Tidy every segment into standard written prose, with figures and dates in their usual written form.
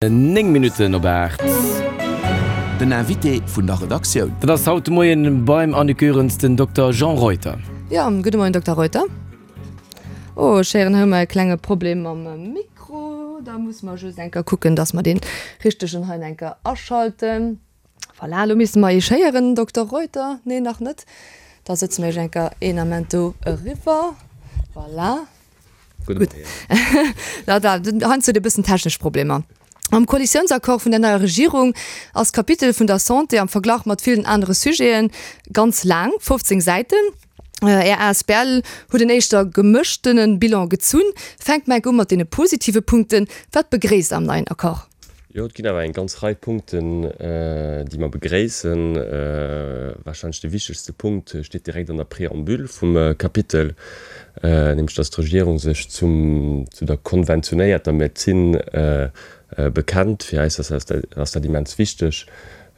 9 Minutten op 8. Den Invité vun der Redaktioun. Dat ass haut de Moien beim Annick Goerens den Dokter Jean Reuter. Jo, gudde Moien Dokter Reuter. Oh, ech héieren hei hu mer e klenge Problem mam Mikro. Da musse mer just eng Kéier kucken, dass mer dee richtegen hei eng Kéier aschalten. Voilà, elo misste mer Iech héieren, Dokter Reuter. Nee, nach net. Da sëtze mer Iech eng Kéier een Ament do eriwwer. Voilà. Gutt. Da, da, heiansdo huet ee bëssen technesch Problemer. Am Koalitiounsaccord vun der neier Regierung ass d'Kapitel vun der Santé am Verglach mat villen anere Sujete ganz laang, 15 Säiten. Är asbl huet en éischter gemëschtene Bilan gezunn. Fänkt mer enk u mat deene positive Punkten. Wat begréisst Der am neien Accord? Jo, et ginn awer eng ganz Rei Punkten, déi mer begréissen. Warscheinlech de wichtegste Punkt steet direkt an der Préambule vum Kapitel, nämlech datt d'Regierung sech zum, zu der konventionéierter Medezin bekennt. Fir eis ass dat immens wichteg.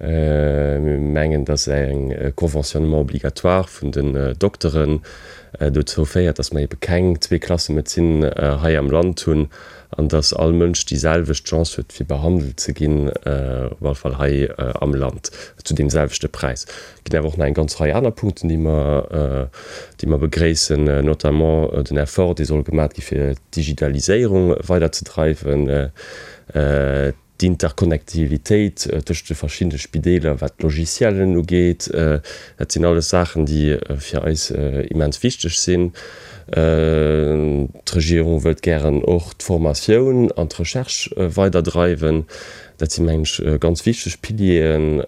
Mir mengen, dass eng Conventionnement obligatoire vun den Dokteren dozou féiert, dass mer ebe keng Zweeklassemedezin hei am Land hunn an dass all Mënsch déi selwecht Chance huet, fir behandelt ze ginn, op alle Fall hei am Land, zu deem selwechte Präis. Et ginn awer och nach eng ganz Rei aner Punkten, déi mer, déi mer begréissen, notamment den Effort, dee soll gemaat gi fir d'Digitaliséierung weiderzedreiwen, D'Interconnectivitéit tëscht de verschiddene Spideeler, wat d'Logiciellen ugeet, dat sinn alles Saachen, déi fir eis immens wichteg sinn. D'Regierung wëllt gären och d'Formatioun an d'Recherche weiderdreiwen. Dat sinn, mengen ech, ganz wichteg Pilieren,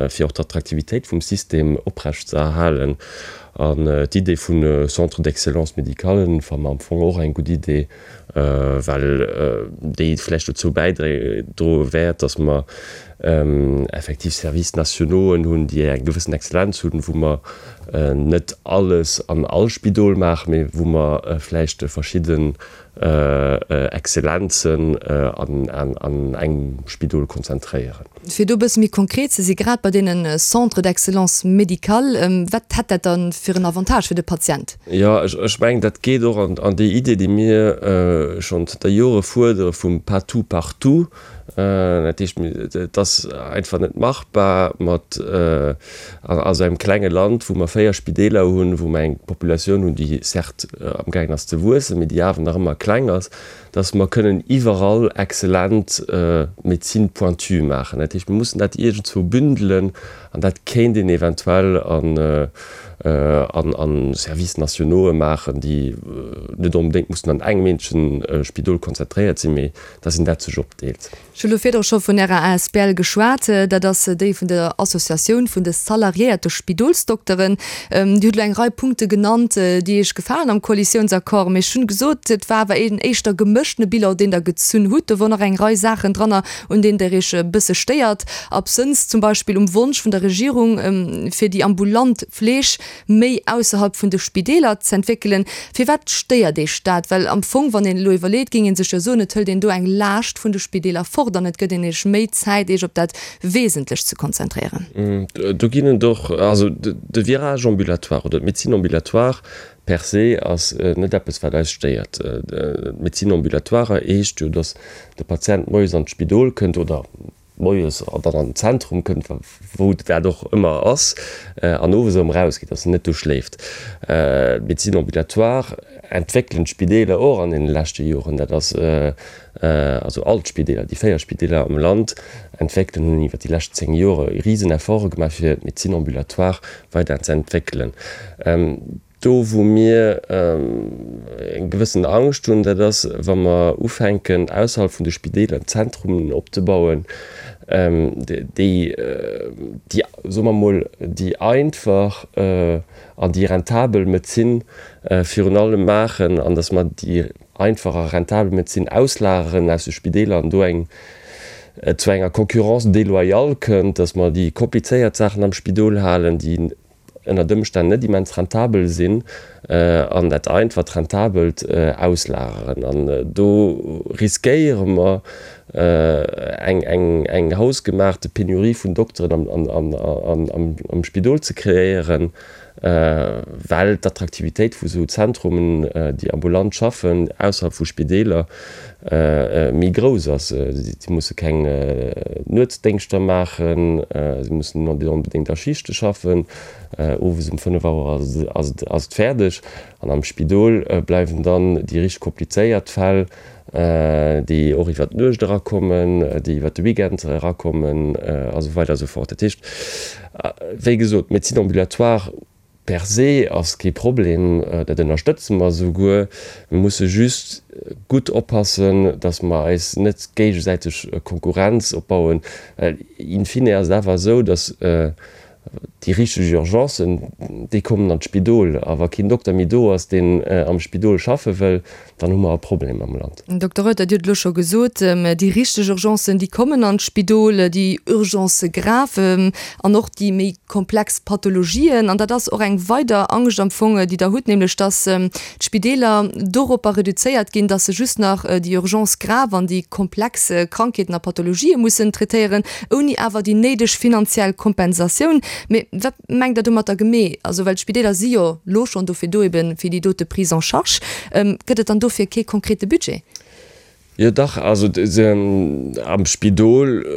fir och d'Attraktivitéit vum System oprechtzeerhalen. An d'Idee vu Centres d'excellence médicale fanne mer am Fong och eng gutt Idee. well déi vläicht dozou bäidroe wäert, datt mer effektiv Services nationauxen hunn, déi eng gewëssen Exzellenz hunn, wou mer net alles an all Spidol maachen, mee wou mer vläicht verschidden Exzellenzen an engem Spidol konzentréieren. Fir do e bësse méi konkret ze si grad bei deene Centres d'excellence médicale, wat hätt dat da fir en Avantage fir de Patient? Jo, ech mengen, dat geet och an déi Idee, déi mir schonn zënter Jore fuerdere vum pas tout partout. Dat heescht, et ass einfach net machbar mat a sou engem klenge Land, wou mer 4 Spideeler hunn, wou mer eng Populatioun hunn, déi certes amgaangen ass ze wuessen, mee déi awer nach ëmmer kleng ass, dass mer kënnen iwwerall exzellent Médecine pointue maachen. Dat heescht, mir mussen dat iergendzwou bündelen an dat kéint een eventuell an an Services nationaux'e maachen, déi net onbedéngt mussen an engem eenzegen Spidol konzentréiert sinn, mee dass een dat sech opdeelt. Ech hu lo virdru scho vun Ärer asbl geschwat. Dat ass déi vun der Associatioun vun de salariéierte Spidolsdokteren. Dir hutt elo eng Rei Punkte genannt, déi Iech gefalen am Koalitiounsaccord. Mee ech hunn gesot, et war awer een éischter gemëschtene Bilan, deen Der gezunn hutt. Do wor nach eng Rei Saachen dranner, un deenen Der Iech e bësse stéiert. Absënns zum Beispill um Wonsch vun der Regierung, fir déi ambulant Fleeg méi ausserhalb vun de Spideeler z'entwéckelen. Firwat stéiert Iech dat? Well am Fong, wann een elo iwwerleet, géing ee sech jo soen, et hëlt een do eng Laascht vun de Spideeler fort an et gëtt een Iech méi Zäit, Iech op dat Wesentlecht ze konzentréieren. Do ginn et och, also de Virage ambulatoire oder d'Médecine ambulatoire per se ass net eppes, wat eis stéiert. D'Médecine ambulatoire heescht jo, datt de Patient moies an d'Spidol kënnt oder moies dann an den Zentrum kënnt, wou dat och ëmmer ass, an owes erëm erausgeet, dass en net do schléift. D'Médecine ambulatoire entwéckelen d'Spideeler och an deene leschte Joren. Dat ass also all d'Spideeler, déi 4 Spideeler am Land entwéckelen, hunn iwwer déi lescht 10 Jore risen Efforte gemaach, fir d'Médecine ambulatoire weider ze entwéckelen. Do wou mir eng gewëssen Angscht hunn, dat ass, wa mer ufänken ausserhalb vun de Spideeler Zentrumen opzebauen, déi, déi, soe mer emol, déi einfach an déi rentabel Medezin virun allem maachen an datt mer déi einfach a rentabel Medezin auslageren aus de Spideeler an do eng et zu enger Concurrence déloyale kënnt, datt mer déi komplizéiert Saachen am Spidol halen, déi ënnert Ëmstänn net immens rentabel sinn an dat einfacht Rentabelt auslageren. An do riskéiere mer eng hausgemaachte Penurie vun Dokteren am Spidol ze kreéieren. Well d'Attraktivitéit vu sou Zentrumen, déi ambulant schaffen, ausserhalb vu Spideeler, méi grouss ass. Si musse keng Nuetsdéngschter maachen, si mussen net onbedéngt a Schichte schaffen. Owes um 5 Auer ass et fäerdeg. An am Spidol bleiwen dann déi richteg komplizéiert Fäll, déi och iwwer d'Nuecht erakommen, déi iwwer de Weekend erakommen a sou weider a sou fort. Dat heescht, wéi gesot, d'Médecine ambulatoire per se ass kee Problem, dat ënnerstëtze mer esouguer. Mir musse just gutt oppassen, datt mer eis net géigesäiteg Konkurrenz opbauen, well in fine ass et awer esou, datt Déi richteg Urgencen, déi kommen an d'Spidol. A wa keen Dokter méi do ass, deen am Spidol schaffe wëll, dann hu mer e Problem am Land. Dokter Reuter, Dir hutt elo scho gesot, déi richteg Urgencen, déi kommen an d'Spidol, déi Urgencë grave an och déi méi komplex Pathologien. An dat ass och eng weider Angscht am Fong, déi Der hutt, nämlech datt d'Spideeler doropper reduzéiert ginn, datt se just nach déi Urgences graves an déi komplex Krankheeten a Pathologië mussen traitéieren, ouni awer déi néideg finanziell Kompensatioun. Mee wat mengt Der domatter gemee? Also, well d'Spideeler si jo lo schonn dofir do, ebe fir déi dote Prise en charge. Gëtt et dann dofir kee konkrete Budget? Jo dach, also am Spidol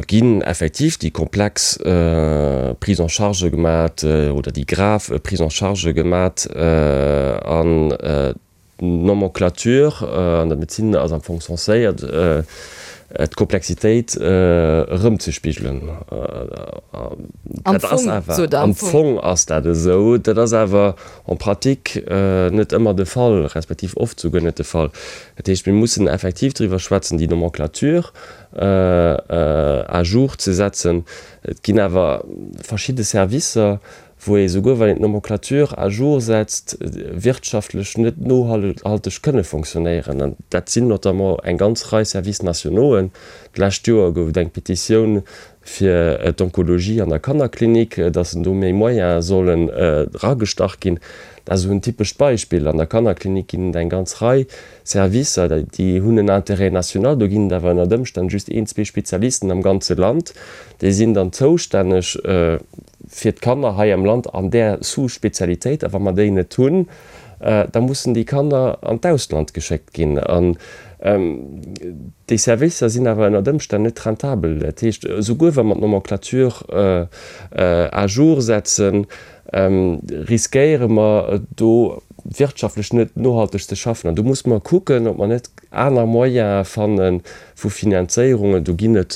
ginn effektiv déi komplex Prise en charge gemat oder déi grave Prise en charge gemat an d'Nomenclature an der Medezin ass am Fong censéiert d'Komplexitéit erëmzespigelen. Am Fong, sot Der, am Fong ass dat esou, dat ass awer en pratique net ëmmer de Fall, respektiv oft souguer net de Fall. Dat heescht, mir mussen effektiv driwwer schwätzen, déi Nomenclature à jour ze setzen. Et ginn awer verschidde Servicer, wou ee souguer wann een d'Nomenclature à jour setzt, wirtschaftlech net nohalteg kënne fonctionnéieren. An dat sinn notamment eng ganz Rei Services nationauxen. D'lescht Joer gouf et eng Petitioun fir d'Onkologie an der Kannerklinik, dass do méi Moyene sollen eragestach ginn. Dat ass esou en typescht Beispill. An der Kannerklinik ginn et eng ganz Rei Servicer, déi hunn en Intérêt national. Do ginn et awer ënnert Ëmstänn just een, zwee Spezialisten am ganze Land. Déi sinn dann zoustänneg fir d'Kanner hei am Land an där Sous-Spezialitéit. A wa mer déi net hunn, da mussen déi Kanner an d'Ausland geschéckt ginn. An déi Servicer sinn awer ënnert Ëmstänn net rentabel. Dat heescht, esouguer wa mer d'Nomenclature à jour setzen, riskéiere mer do wirtschaftlech net nohalteg ze schaffen. An do musse mer kucken, ob mer net aner Moyene fanne vu Finanzéierungen. Do ginn et,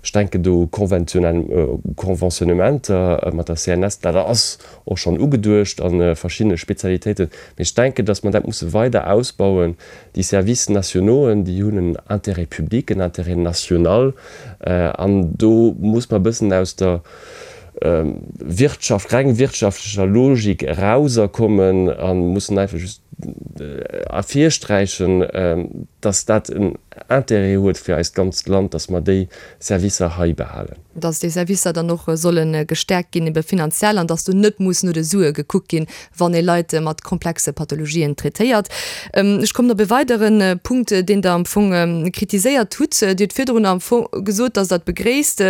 ech denken do u Conventionnementer mat der CNS, dat ass och schonn ugeduecht a verschiddene Spezialitéiten. Mee ech denken, dass mer dat musse weider ausbauen. Déi Services nationauxen, déi hunn en Intérêt public, en Intérêt national. An do muss mer e bëssen aus der Wirtschaft, reng wirtschaftlecher Logik erauserkommen a mussen einfach just ervirsträichen, dass dat en Intérêt huet fir eist ganzt Land, dass mer déi Servicer hei behalen. Dass déi Servicer dann och solle gestäerkt ginn, ebe finanziell, an dass do net muss no de Sue gekuckt ginn, wann ee Leit mat komplexe Pathologien traitéiert. Ech kommen op e weidere Punkt, deen Der am Fong kritiséiert hutt. Dir hutt virdrun am Fong gesot, dass Der et begréisst,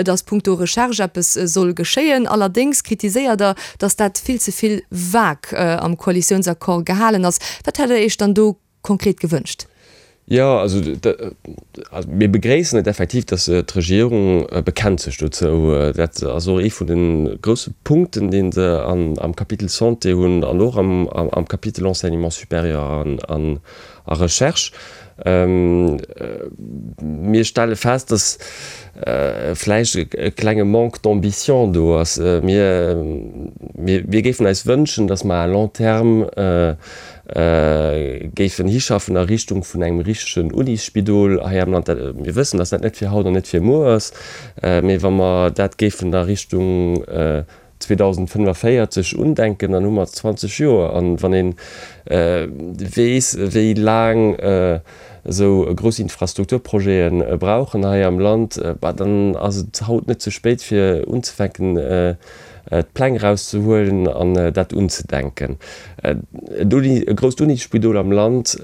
dass punkto Recherche eppes soll geschéien. Allerdéngs kritiséiert Der, dass dat vill ze vill vague am Koalitiounsaccord gehalen ass. Wat hätt Der Iech dann do konkret gewënscht? Jo, also mir begréissen et effektiv, datt d'Regierung bekennt sech dozou. Dat ass och ee vun de grousse Punkten, dee se am Kapitel Santé hunn an och am Kapitel Enseignement supérieur a Recherche. Mir stelle fest, datt vläicht e klenge Manque d'ambition do ass. Mir géifen eis wënschen, datt mer à long terme géifen hischaffen a Richtung vun engem richtegen Unisspidol hei am Land. Mir wëssen, dass dat net fir haut an net fir muer ass, mee wa mer dat géifen a Richtung 2045 undenken, dann hu mer 20 Joer. An wann ee weess, wéi laang esou grouss Infrastrukturprojete brauchen hei am Land, bah, dann ass et haut net ze spéit fir unzefänken, d'Pläng erauszehuelen an dat unzedenken. E grousst Unisspidol am Land.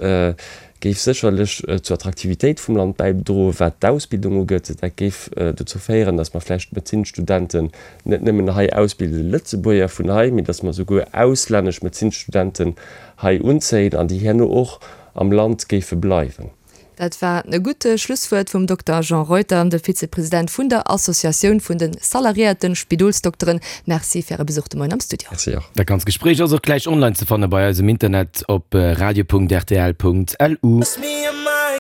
Géif sécherlech zur Attraktivitéit vum Land bäidroen, wat d'Ausbildung ugeet. Dat géif dozou féieren, datt mer vläicht Medezinsstudenten net nëmmen hei ausbilden, Lëtzebuerger vun hei, mee datt mer souguer auslännesch Medezinsstudenten hei unzéien an déi herno och am Land géife bleiwen. Dat war e gutt Schlusswuert vum Dokter Jean Reuter, de Vizepresident vun der Associatioun vun de salariéierte Spidolsdokteren. Merci fir Äre Besuch de Moien am Studio. Merci och. Dat ganzt Gespréich ass och gläich online ze fanne bei eis um Internet op radio.rtl.lu.